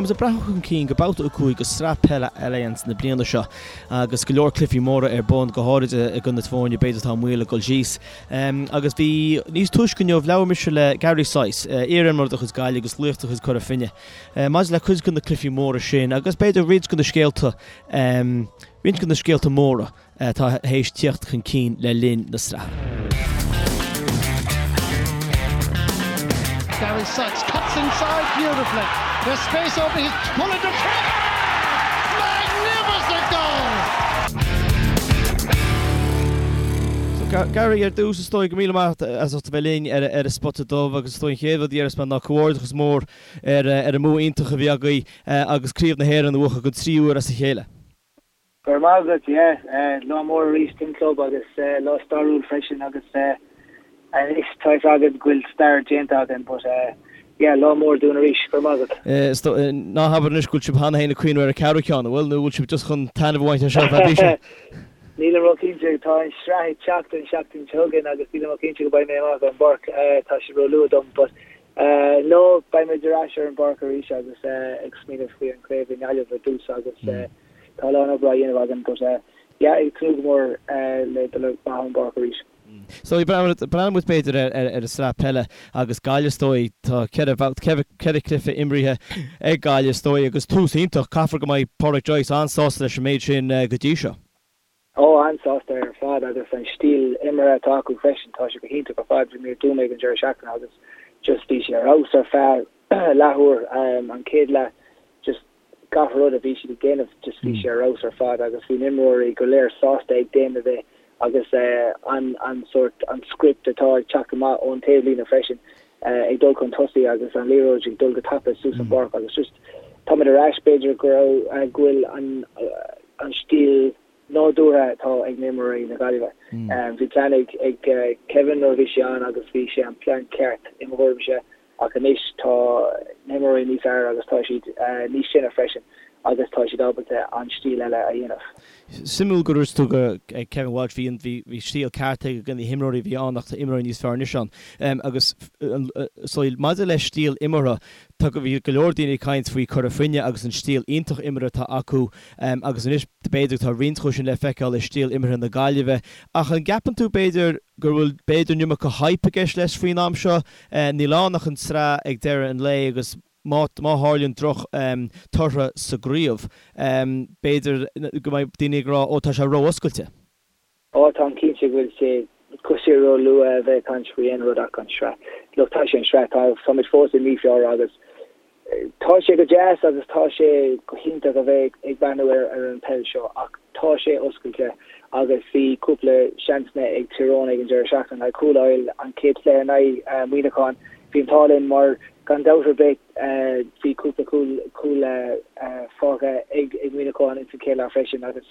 Táimid ag breathnú chun cinn go babhta 5 de Sraith Peile Allianz na bliana seo agus go leor cluichí móra ar bun, go háirid i gcoinne na foirne b'fhéidir atá i mbaol ag dul síos. Agus bhí níos túisce inniu labhair mise le Gary Sice, iar-imreoir de chuid Gaillimh agus laoch de chuid Cora Finne, maidir le cuid de na cluichí móra sin agus b'fhéidir roinnt de na scéalta, roinnt de na scéalta móra. atá théis tíocht chun cinn le linn na sraithe. Gary Sykes cuts inside beautifully. There's space over his pulling the trigger! Magnificent goal! So Gary, ar dtús is dóigh go míle maith as ucht a bheith linn ar an Spota Dubh agus is dóigh an chéad rud a dhéarfas mé ná comhghairdeachas mór ar an mbua iontach a bhí agaibh agus Craobh na hÉireann a bhuachan don tríú huair as a chéile. Go raibh maith agat, yeah, lá mór arís don club agus lá stairiúil freisin agus anois tá fhios agat go bhfuil stair déanta againn but yeah, lá mór dúinn arís, go raibh maith agat. Ná habair anois go bhfuil sibh cheana féin ag cuimhneamh ar an ceathrú ceann, an bhfuil, nó bhfuil sibh just chun taitneamh a bhaint as seo ar feadh píosa? Nílim ró-chinnte, tá an sraith ag teacht an seachtain seo chugainn agus nílim ró-chinnte go mbeidh mé amach ar an bpáirc, tá sé ró-luath dom but no, beidh muid ar ais ar an bpáirc arís agus ag smaoineamh faoi an craobh i nGaillimh ar dtús agus Tá a lán obair á dhéanamh againn but yeah ag tnúth go mór le dul amach ar an bpáirc arís. So breathnóidh muid b'fhéidir ar an sraith peile agus Gaillimh is dóigh, tá 4 bhabhta, 4 cluiche imrithe ag Gaillimh is dóigh agus tús iontach, caithfear go mbeidh Pádraic Joyce an-sásta leis an méid sin go dtí seo. Ó, an-sásta ar fad agus an stíl imeartha atá acu freisin, tá sé go hiontach ar fad. Bhí mé i dTuaim ag an deireadh seachtaine agus just bhí sé ar fheabhas ar feadh leathuair, an chéad leath just gach rud a bhí siad ag déanamh just bhí sé ar fheabhas ar fad agus bhí na imreoirí go léir sásta ag déanamh é agus an an sórt an script atá ag teacht amach ón taobhlíne freisin ag dul chun tosaigh agus an liathróid ag dul go tapa suas an pháirc agus just táimid ar ais b'fhéidir go raibh go bhfuil an an stíl nádúrtha atá ag na imreoirí na Gaillimhe. Bhí plean ag Kevin nuair a bhí sé ann agus bhí sé an plean ceart i mo thuairimse ach anois tá na himreoirí níos fearr agus tá siad níos sine freisin agus tá siad ábalta an stíl eile a dhéanamh. Suimiúil go dúirt tú go ag Kevin Walsh bhí bhí stíl ceart ag na himreoirí a bhí ann ach tá imreoirí níos fearr anois ann. Agus so maidir le stíl imeartha tá bhí go leor daoine ag caint faoi Cora Finne agus an stíl iontach imeartha atá acu agus anois b'fhéidir tá roinnt acu sin le feiceáil i stíl imeartha na Gaillimhe ach an gceapann tú b'fhéidir go bhfuil b'fhéidir an iomarca hype i gceist leis faoin am seo? Níl ann ach an tsraith ag deireadh an lae agus má má tharlaíonn droch tortha sa gcraobh, b'fhéidir go mbeidh daoine ag rá ó tá sé ró-oscailte. Ó táim cinnte go bhfuil sé go bhfuil sé ró-luath a bheith ag caint faoi aon rud ach an sraith. Look, tá sé an sraith, tá táimid fós i mí Feabhra agus tá sé go deas agus tá sé go hiontach a bheith ag breathnú ar ar an peil seo ach tá sé oscailte agus bhí cúpla seansanna ag Tír Eoghain ag an deireadh seachtaine le cúl a fháil an chéad chluiche in aghaidh Muineachán. Bhí an t-ádh linn mar gan dabht ar bith bhí cúpla cúl cúl fágtha ag ag Muineachán ins an chéad leath freisin agus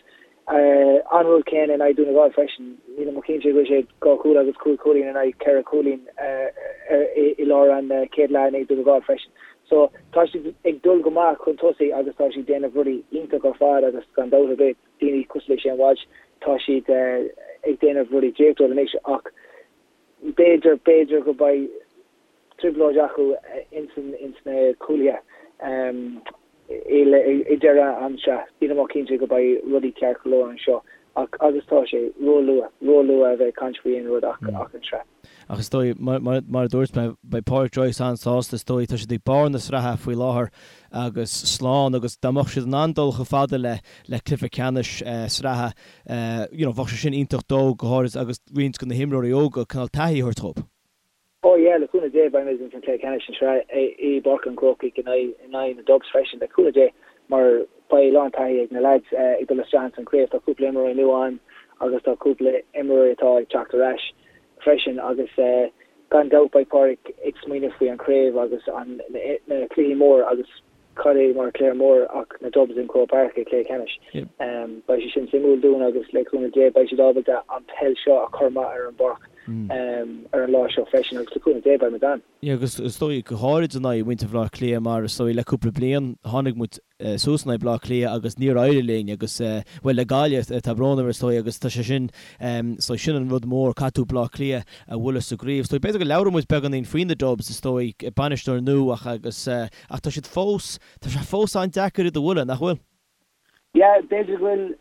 An rud céanna in aghaidh Dún na nGall freisin. Nílim cinnte go bhfuil sé 2 chúl agus 5 chúilín in aghaidh 4 chúilín i lár an chéad leath in aghaidh Dún na nGall freisin. So tá siad ag dul go maith chun tosaigh agus tá siad ag déanamh rudaí iontach ar fad agus gan dabht ar bith daoine cosúil le Shane Walsh tá siad ag déanamh rudaí draíochtúil anois ach b'fhéidir, b'fhéidir go mbeidh trioblóid acu ins na cúlaithe i deireadh an sraith. Nílim cinnte go mbeidh rudaí ceart go leor anseo ach agus tá sé ró-luath, ró-luath a bheith ag caint faoi aon rud ach an tsraith. Ach is dóigh, mar a dúirt mé, beidh Pádraic Joyce an-sásta is dóigh. Tá siad ag barr na sraithe faoi láthair agus slán agus dá mbeadh siad in ann dul chomh fada le le cluiche ceannais sraithe, you know, bheadh sé sin iontach dó go háirid agus roinnt de na himreoirí óga cineál taithí a thabhairt dhóibh. Oh yeah, le cúnamh Dé beidh muid ins an cluiche ceannais an sraith i bPáirc an Chrócaigh in aghaidh na Dubs freisin, le cúnamh Dé, mar beidh a lán taithí ag na lads ag dul isteach ins an craobh. Tá cúpla imreoirí nua ann agus tá cúpla imreoirí atá ag teacht ar ais freisin agus gan dabht beidh Pádraic ag smaoineamh faoi an craobh agus an na cluichí mór agus cad é mar cluiche mór ach na Dubs in Croke Park i cluiche ceannais. Beidh sé sin suimiúil dúinn agus le cúnamh Dé beidh siad ábalta an peil seo a chur amach ar an bpáirc. ar an lá seo freisin agus le cúnamh Dé beidh muid ann. Yeah agus is dóigh go háirid in aghaidh mhuintir Bhaile Átha Cliath mar is dóigh le cúpla bliain tháinig muid suas in aghaidh Bleá Cliath agus níor éirigh linn agus, bhuel, le Gaillimh, tá brón orm, is dóigh, agus tá sé sin, is dóigh, sin an rud mór, caithfidh tú Bleá Cliath a bhualadh sa gcraobh. Is dóigh, b'fhéidir go labhróidh muid beagáinín faoi na Dubs, is dóigh, bainisteoir nua ach agus, ach tá siad fós, tá sé fós an-deacair iad a bhualadh, nach bhfuil? Yeah, b'fhéidir go bhfuil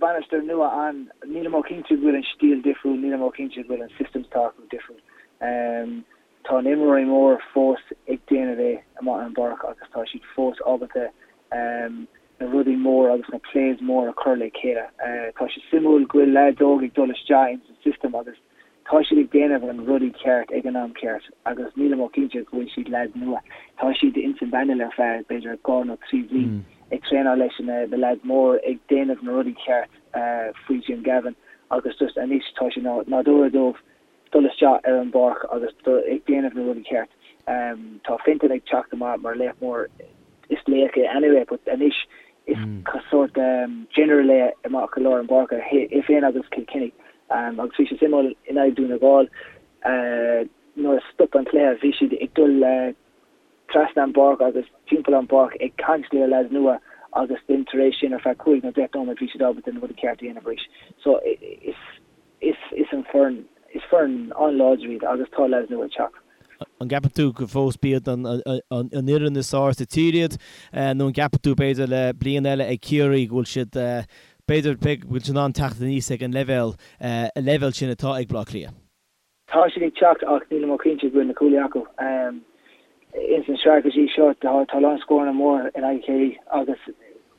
bainisteoir nua ann, nílim cinnte go bhfuil an stíl difriúil, nílim cinnte go bhfuil an systems atá acu difriúil. Tá na imreoirí mór fós ag déanamh é amuigh ar an bpáirc agus tá siad fós ábalta na rudaí mór agus na plays mór a chur le chéile. Tá sé suimiúil go bhfuil leaids óg ag dul isteach ins an system agus tá siad ag déanamh an rudaí ceart ag an am ceart agus nílim cinnte go bhfuil siad leaids nua. Tá siad ins an bpanel ar feadh b'fhéidir 2 nó 3 bhliain ag traenáil leis na leaids mór ag déanamh na rudaí ceart faoi Jim Gavin agus just anois tá sé nádúrtha dóibh dul isteach ar an bpáirc agus ag déanamh na rudaí ceart. Tá Fintan ag teacht amach mar laoch mór, is laoch é anyway but anois is sórt general é amach i lár an pháirce, é féin agus Kilkenny. Agus bhí sé suimiúil in aghaidh Dún na nGall nuair a stop an cluiche bhí siad ag dul trasna an bpáirc agus timpeall an bpáirc ag caint le leaids nua agus then tar éis sin ar feadh cúig nó deich nóiméad bhí siad ábalta na rudaí ceart a dhéanamh arís. So is. Is is an foireann, is foireann an-láidir iad agus tá leaids nua ag teacht. An gceapann tú go fós b'iad an fhoireann is fearr sa tír iad nó an gceapann tú b'fhéidir le bliain eile ag Ciarraí go bhfuil siad b'fhéidir go bhfuil siad in ann teacht aníos ag an leibhéal, an leibhéal sin atá ag Baile Átha Cliath? Tá siad ag teacht ach nílim cinnte go bhfuil na cúlaithe acu. Ins an sraith go dtí seo tá a lán scóranna mór in aghaidh Chiarraí agus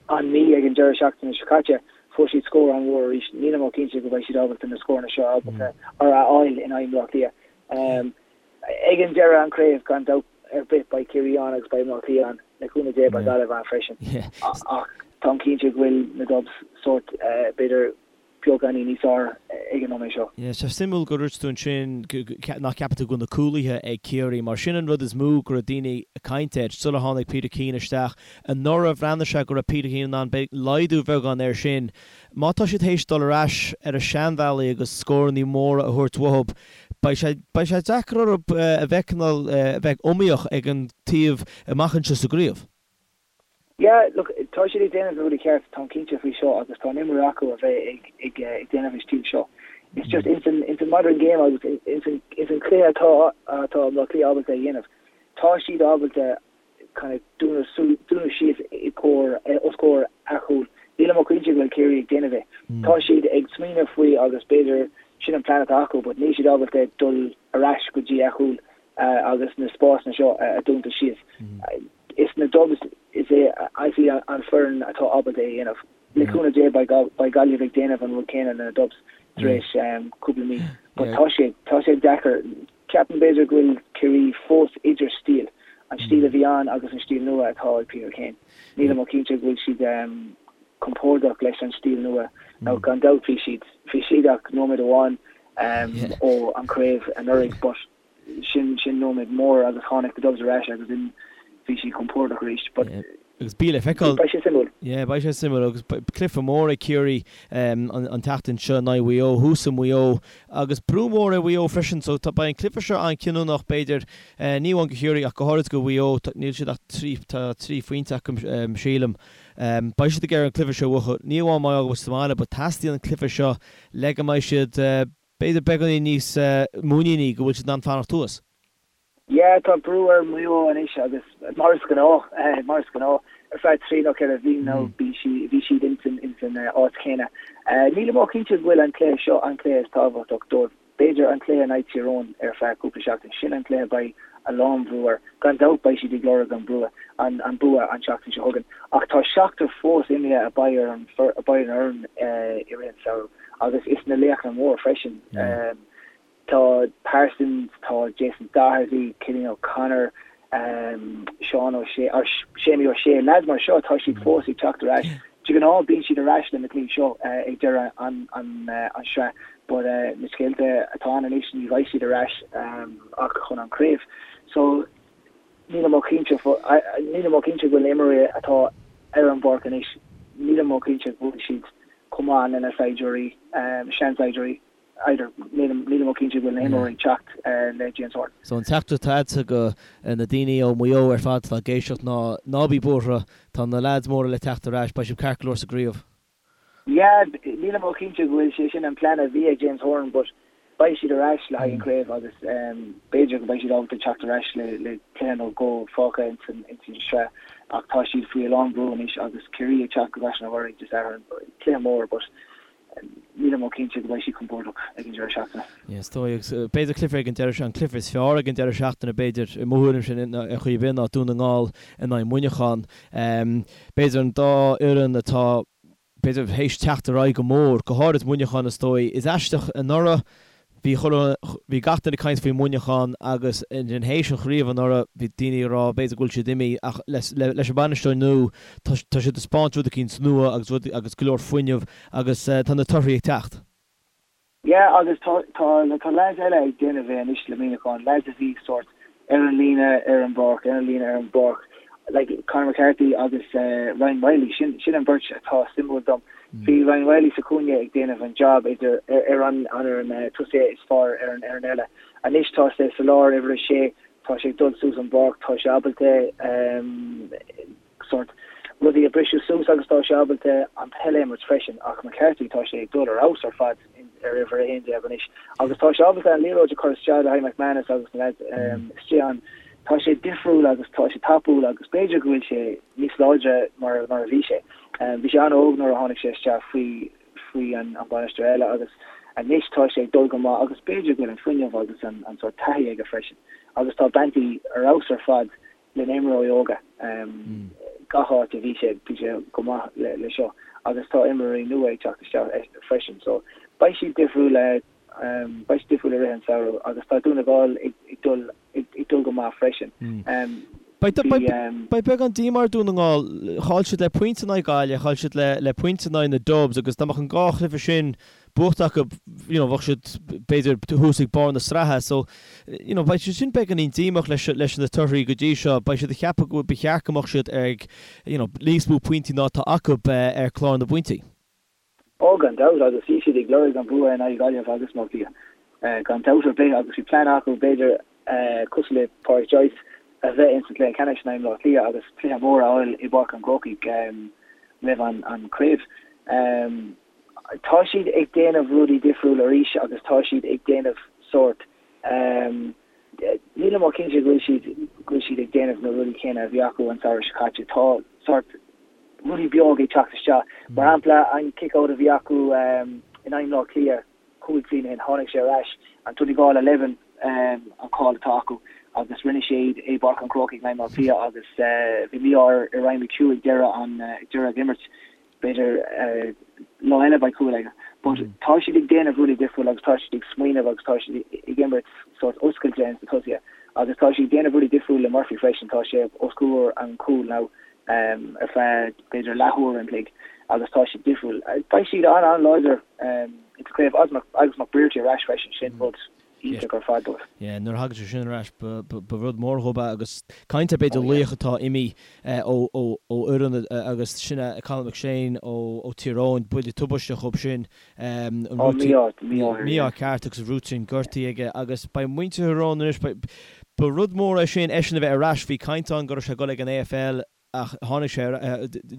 an Mí ag an deireadh seachtaine seo caite fuair siad scór an-mhór arís. Nílim cinnte go mbeidh siad ábalta na scóranna seo ábalta a fháil in aghaidh Bhaile Átha Cliath. Ag an deireadh an craobh gan dabht ar bith beidh Ciarraí ann agus beidh Baile Átha Cliath ann. Le cúnamh Dé beidh Gaillimh ann freisin. Ach táim cinnte go bhfuil na Dubs sórt b'fhéidir beagáinín níos fearr ag an nóiméad seo. Yeah, sé suimiúil gur dúirt tú ansin nach gceapann tú go bhfuil na cúlaithe ag Ciarraí, mar sin an rud is mó go raibh daoine ag caint air sular tháinig Peter Keane isteach. Anuraidh bhreathnaigh sé go raibh Peter Keane in ann laghdú beagán air sin. Má tá siad théis dul ar ais ar a seanbhealaí agus scórannaí móra a thabhairt uathu, beidh sé beidh sé deacair orthu a bheith cineál a bheith iomaíoch ag an taobh amach anseo sa gcraobh. Yeah, look, tá siad ag déanamh na rudaí ceart, táim cinnte faoi seo agus tá an imreoirí acu a bheith ag ag ag déanamh an stíl seo. It's just ins an ins an modern game agus ins an ins an cluiche atá atá Baile Átha Cliath ábalta a dhéanamh, tá siad ábalta kind of dúnadh su dúnadh síos i gcomhair os comhair a chúl. Nílim cinnte go bhfuil Ciarraí ag déanamh é. Tá siad ag smaoineamh faoi agus b'fhéidir sin an plean atá acu but níl siad ábalta dul ar ais go dtí a chúl agus na spásanna seo a dúnta síos. Is na Dubs is é is í an foireann atá ábalta é a dhéanamh. Le cúnamh Dé beidh Gaillimh ag déanamh an rud céanna le na Dubs tar éis cúpla mí. But tá sé tá sé deacair. Ceapaim b'fhéidir go bhfuil Ciarraí fós idir stíl, an stíl a bhí ann agus an stíl nua atá ag Peter Keane. Nílim cinnte go bhfuil siad compordach leis an stíl nua. Now gan dabht bhí siad bhí siad ach nóiméad amháin ó an craobh anuraidh but sin sin nóiméad mór agus tháinig the Dubs ar ais agus then bhí siad compordach arís but Agus beidh le feiceáil. beidh sé suimiúil. Yeah, beidh sé suimiúil agus cluiche mór ag Ciarraí an an tseachtain seo in aghaidh Mhaigh Eo, thuas i Maigh Eo agus brú mór ar Mhaigh Eo freisin so tá beidh an cluiche seo an-chinniúnach b'fhéidir ní amháin do Chiarraí ach go háirid do Mhaigh Eo níl siad ach trí tá trí phointe acu sílim. Beidh siad ag iarraidh an cluiche seo a bhuachan ní amháin mar gheall sa mbaile but teastaíonn an cluiche seo le go mbeidh siad B'fhéidir beagáinín níos muiníní go bhfuil siad in ann fanacht thuas. Yeah, tá brú ar Mhaigh Eo anois agus mar is gnáth, mar is gnáth, ar feadh trí nó ceithre mhí nó bhí sí, bhí siad ins an, ins an áit chéanna. Nílim cinnte go bhfuil an cluiche seo an cluiche is tábhachtach dóibh. B'fhéidir an cluiche in aghaidh Tír Eoghain ar feadh cúpla seachtain, sin an cluiche beidh a lán bhrú air. Gan dabht beidh siad ag lorg an brú, an, an bua an tseachtain seo chugainn. Ach tá seachtar fós imithe a beidh ar an, a beidh ar an fhoireann i rith an samhradh. Agus is na laochra mór freisin. Tá Parsons, tá Jason Doherty, Cillian O'Connor, Seán O'Shea, or Séamie O'Shea, lads mar seo, tá siad fós ag teacht ar ais. De ghnáth bíonn siad ar ais le na cluichí seo ag deireadh an sraith but na scéalta atá ann anois ní bheidh siad ar ais ach chun an craobh. So nílim cinnte nílim cinnte go bhfuil na imreoirí atá ar an bpáirc anois, nílim cinnte go bhfuil siad chomh maith lena saighdiúirí, seansaighdiúirí. Either, nílim nílim cinnte go bhfuil na himreoirí ag teacht le James Horan. So an teachtaireacht atá agatsa go na daoine ó Mhaigh Eo ar fad atá ag éisteacht ná ná bí buartha, tá na leaids móra le teacht ar ais, beidh sibh ceart go leor sa gcraobh. Yeah, nílim cinnte go bhfuil sé sin an plean a bhí ag James Horan but beidh siad ar ais le haghaidh an chraobh agus b'fhéidir go mbeidh siad ábalta teacht ar ais le le cluiche nó dhó fágtha ins an ins an sraith ach tá siad faoi a lán brú anois agus Ciarraí ag teacht go gCaiseal na Mhuirí Dé Sathairn, cluiche mór but nílim cinnte go mbeidh siad compordach ag an deireadh seachtaine. Yeah, is dóigh agus b'fhéidir cluiche ag an deireadh an cluiche is fearr ag an deireadh seachtaine b'fhéidir i mo thuairimse ar chaoi ar bith ná Dún na nGall in aghaidh Muineachán. B'fhéidir an dá fhoireann atá b'fhéidir théis teacht ar aghaidh go mór, go háirid Muineachán is dóigh. Is aisteach anuraidh bhí chuile, bhí gach duine ag caint faoi Mhuineachán agus ansin théis an chraobh anuraidh bhí daoine ag rá b'fhéidir go bhfuil siad imithe ach leis an bhainisteoir nua tá tá siad ag taispeáint rud eicínt nua agus rud agus go leor fuinneamh agus tá na torthaí ag teacht. Yeah agus tá tá tá lads eile ag déanamh é anois le Muineachán, lads a bhí sórt ar an líne ar an bpáirc, ar an líne ar an bpáirc, like Conor McCarthy agus Ryan Wylie, sin sin an bheirt atá suimiúil dom. Bhí Ryan Wylie sa chúinne ag déanamh an job idir ar an an ar an tosaí is fearr ar an ar an eile. Anois tá sé sa lár uimhir a sé, tá sé ag dul suas an bpáirc, tá sé ábalta sórt rudaí a briseadh suas agus tá sé ábalta an peil a imirt freisin ach McCarthy tá sé ag dul ar fheabhas ar fad ar uimhir 11 anois agus tá sé ábalta an liathróid a chur isteach le haghaidh McManus agus na lads istigh ann. Tá sé difriúil agus tá sé tapúil agus b'fhéidir go bhfuil sé níos láidre mar mar a bhí sé. Bhí sé an-óg nuair a tháinig sé isteach faoi faoi an bainisteoir eile agus anois tá sé ag dul go maith agus b'fhéidir go bhfuil an fuinneamh agus an an sórt taithí aige freisin agus tá Banty ar fheabhas ar fad le na imreoirí óga. Gach áit a bhí sé, bhí sé go maith le seo agus tá imreoirí nua ag teacht isteach freisin so beidh siad difriúil beidh siad difriúil i rith an samhradh agus tá Dún na nGall ag dul ag dul go maith freisin. Beidh beagán díomá ar Dún na nGall, chaill siad le pointe in aghaidh Gaillimh, chaill siad le pointe in aghaidh na Dubs agus dá mbeadh an dhá chluiche sin buachta acu, you know, bheadh siad b'fhéidir thuas ag barr na sraithe. So, you know, beidh siad sin beagáinín díomách leis, leis na torthaí go dtí seo. Beidh siad ag ceapadh go ba cheart go mbeadh siad ag, you know, níos mó pointí ná atá acu ar chlár na bpointí. Ó, gan dabht, agus bhí siad ag lorg an bua in aghaidh Gaillimh agus Áth Cliath, gan dabht ar bith, agus bhí plean acu, b'fhéidir, cosúil le Pádraic Joyce, a bheith ins an chluiche ceannais in aghaidh Bhaile Átha Cliath agus cluiche mór a fháil i bPáirc an Chrócaigh roimh an chraobh. Tá siad ag déanamh rudaí difriúil arís agus tá siad ag déanamh sórt, nílim cinnte go bhfuil siad, go bhfuil siad ag déanamh na rudaí céanna a bhí acu an samhradh seo caite. Tá sórt rudaí beag ag teacht isteach. Mar shampla, an kick-out a bhí acu in aghaidh Bhaile Átha Cliath 5 bliana ó shin, tháinig sé ar ais, an Donegal 11 an call atá acu agus rinne sé iad i bPáirc an Chrócaigh in aghaidh Bhaile Átha Cliath agus bhí mí-ádh ar Ryan McHugh ag deireadh an, ag deireadh an imirt. B'fhéidir lá eile beidh cúl aige. But tá siad ag déanamh rudaí difriúil agus tá siad ag smaoineamh agus tá siad ag imirt sórt oscailte ins na tosaithe. Agus tá siad ag déanamh rudaí difriúil le Murphy freisin, tá sé os comhair an chúil now ar feadh b'fhéidir leathuair an chloig agus tá siad difriúil. Beidh siad an-an-láidir ins an chraobh agus McBrearty ar ais freisin, sin rud iontach ar fad dóibh. Yeah, nuair a thagann sé sin ar ais, ba rud mór dhóibh é agus caint ar b'fhéidir laoch atá imithe ó fhoireann agus sin é Colin McShane ó Tír Eoghain, buille tubaisteach dhóibh sin. Ó, mí-ádh, mí-ádh air. Mí-ádh ceart agus an ruatrinn gortaithe aige agus beidh muintir Thír Eoghain anois, ba rud mór é sin eisean a bheith ar ais, bhí caint ann go raibh sé ag dul ag an AFL, ach tháinig sé,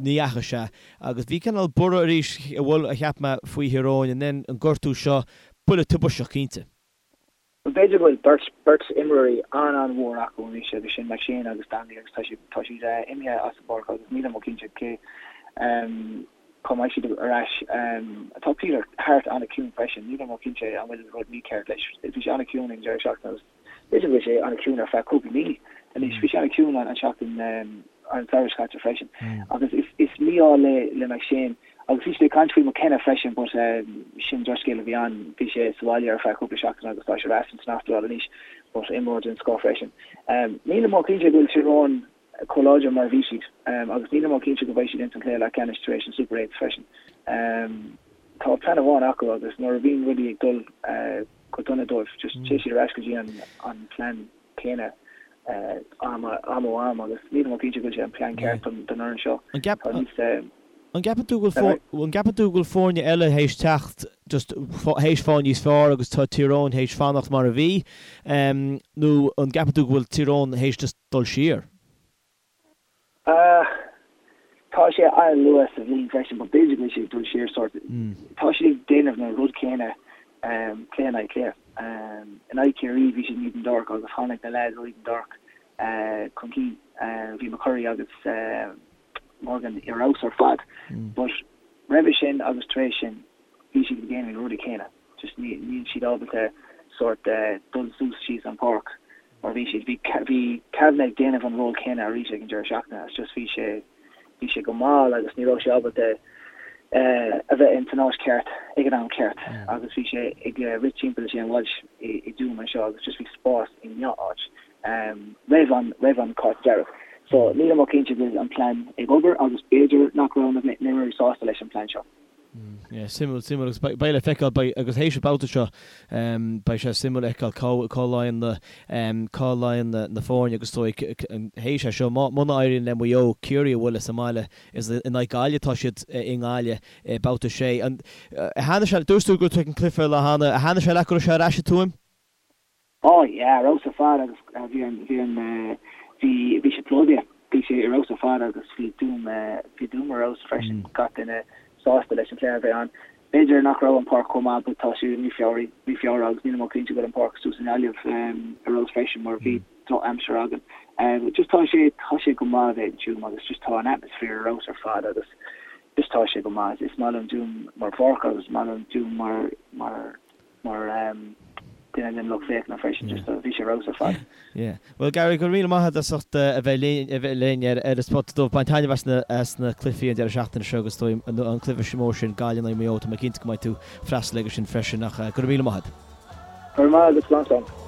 ní dheachaigh sé agus bhí cineál borradh arís a bhfuil, a cheap mé, faoi Thír Eoghain and then an gortú seo, buille tubaisteach cinnte. B'fhéidir go bhfuil beirt, beirt imreoirí an-an-mhór acu anois agus sin McShane agus Donnelly agus tá siad, tá siad imithe as an bpáirc agus nílim cinnte cé cá mbeidh siad ar ais. Tá Peter Harte an-chiúin freisin, nílim cinnte an bhfuil rud mícheart leis, bhí sé an-chiúin ag an deireadh seachtaine agus B'fhéidir go bhfuil sé an-chiúin ar feadh cúpla mí anois. Bhí sé an-chiúin an seachtain an samhradh seo caite freisin. Agus is mí-ádh le le McShane. Agus bhí siad ag caint faoi McKenna freisin but sin drochscéal a bhí ann. Bhí sé sa bhaile ar feadh cúpla seachtain agus tá sé ar ais san Astráil anois but imreoir den scoth freisin. Nílim cinnte go bhfuil Tír Eoghain chomh láidir mar a bhí siad agus nílim cinnte go mbeidh siad ins an chluiche leathcheannais tar éis an Super Eights freisin. Tá plean amháin acu agus nuair a bhíonn rudaí ag dul go dona dóibh just téann siad ar ais go dtí an plean céanna am am ó am agus nílim cinnte go bhfuil sé an plean ceart don fhoireann seo. An gceap. An gceapann tú go bhfuil an gceapann tú go bhfuil foirne eile théis teacht just théis fáil níos fearr agus tá Tír Eoghain théis fanacht mar a bhí nó an gceapann tú go bhfuil Tír Eoghain théis just dul siar? Tá sé an-luath sa bhliain freisin but b'fhéidir go bhfuil sé ag dul siar sort. Tá siad ag déanamh na rud céanna cluiche in aghaidh cluiche. In aghaidh Ciarraí bhí siad in Eden Dorc agus tháinig na lads ó Eden Dorc chun cinn. Bhí McCurry agus Morgan ar fheabhas ar fad but roimhe sin agus tar éis sin bhí siad ag déanamh na rudaí céanna. Just níl siad ábalta sort dul suas síos an páirc mar bhí siad. Bhí bhí Kavanagh ag déanamh an ról céanna arís ag an deireadh seachtaine it's just bhí sé bhí sé go mall agus ní raibh sé ábalta a bheith in san áit ceart ag an am ceart agus bhí sé ag rith timpeall Shane Walsh i i dTuaim anseo agus just bhí spás i ngach áit roimh an roimh an cárta dearg. So nílim chomh cinnte go bhfuil an plean ag obair agus b'fhéidir nach raibh na himreoirí sásta leis an plean seo. Yeah, suimiúil, suimiúil agus beidh le feiceáil, beidh, agus théis an babhta seo, beidh sé suimiúil a fheiceáil cá, cá luíonn na, cá luíonn na, na foirne agus is dóigh théis é seo, má, muna éiríonn le Maigh Eo Ciarraí a bhualadh sa mbaile, is in aghaidh Gaillimh atá siad i nGaillimh i babhta 6. An, thaitnigh sé, dúirt tú go raibh tú ag an cluiche lá cheana, thaitnigh sé leat go raibh sé ar ais i Tuaim? Oh yeah, ar fheabhas ar fad agus bhí an, bhí an, bhí, bhí sé plódaithe, bhí sé ar fheabhas ar fad agus bhí Tuaim, bhí Tuaim ar fheabhas freisin, gach duine sásta leis an chluiche a bheith ann. B'fhéidir nach raibh an páirc chomh maith but tá sé mí Feabhra, mí Feabhra agus nílim cinnte go bhfuil an páirc suas i nGaillimh ar fheabhas freisin mar bhí droch-aimsir againn. Just tá sé, tá sé go maith a bheith in Tuaim agus just tá an atmosphere ar fheabhas ar fad agus just tá sé go maith. Is maith liom Tuaim mar pháirc agus is maith liom Tuaim mar, mar, mar duine den lucht féachana freisin, just bhí sé ar fheabhas ar fad. Yeah. Bhuel Gary, go raibh míle maith agat as ucht a bheith linn, a bheith linn ar ar an Spota Dubh. Bain taitneamh as na as na cluichí an deireadh seachtaine seo agus is dóigh an an cluiche mór sin Gaillimh in aghaidh Maigh Eo, tá mé cinnte go mbeidh tú freastal aige sin freisin ach go raibh míle maith agat. Go raibh maith agat, slán slán.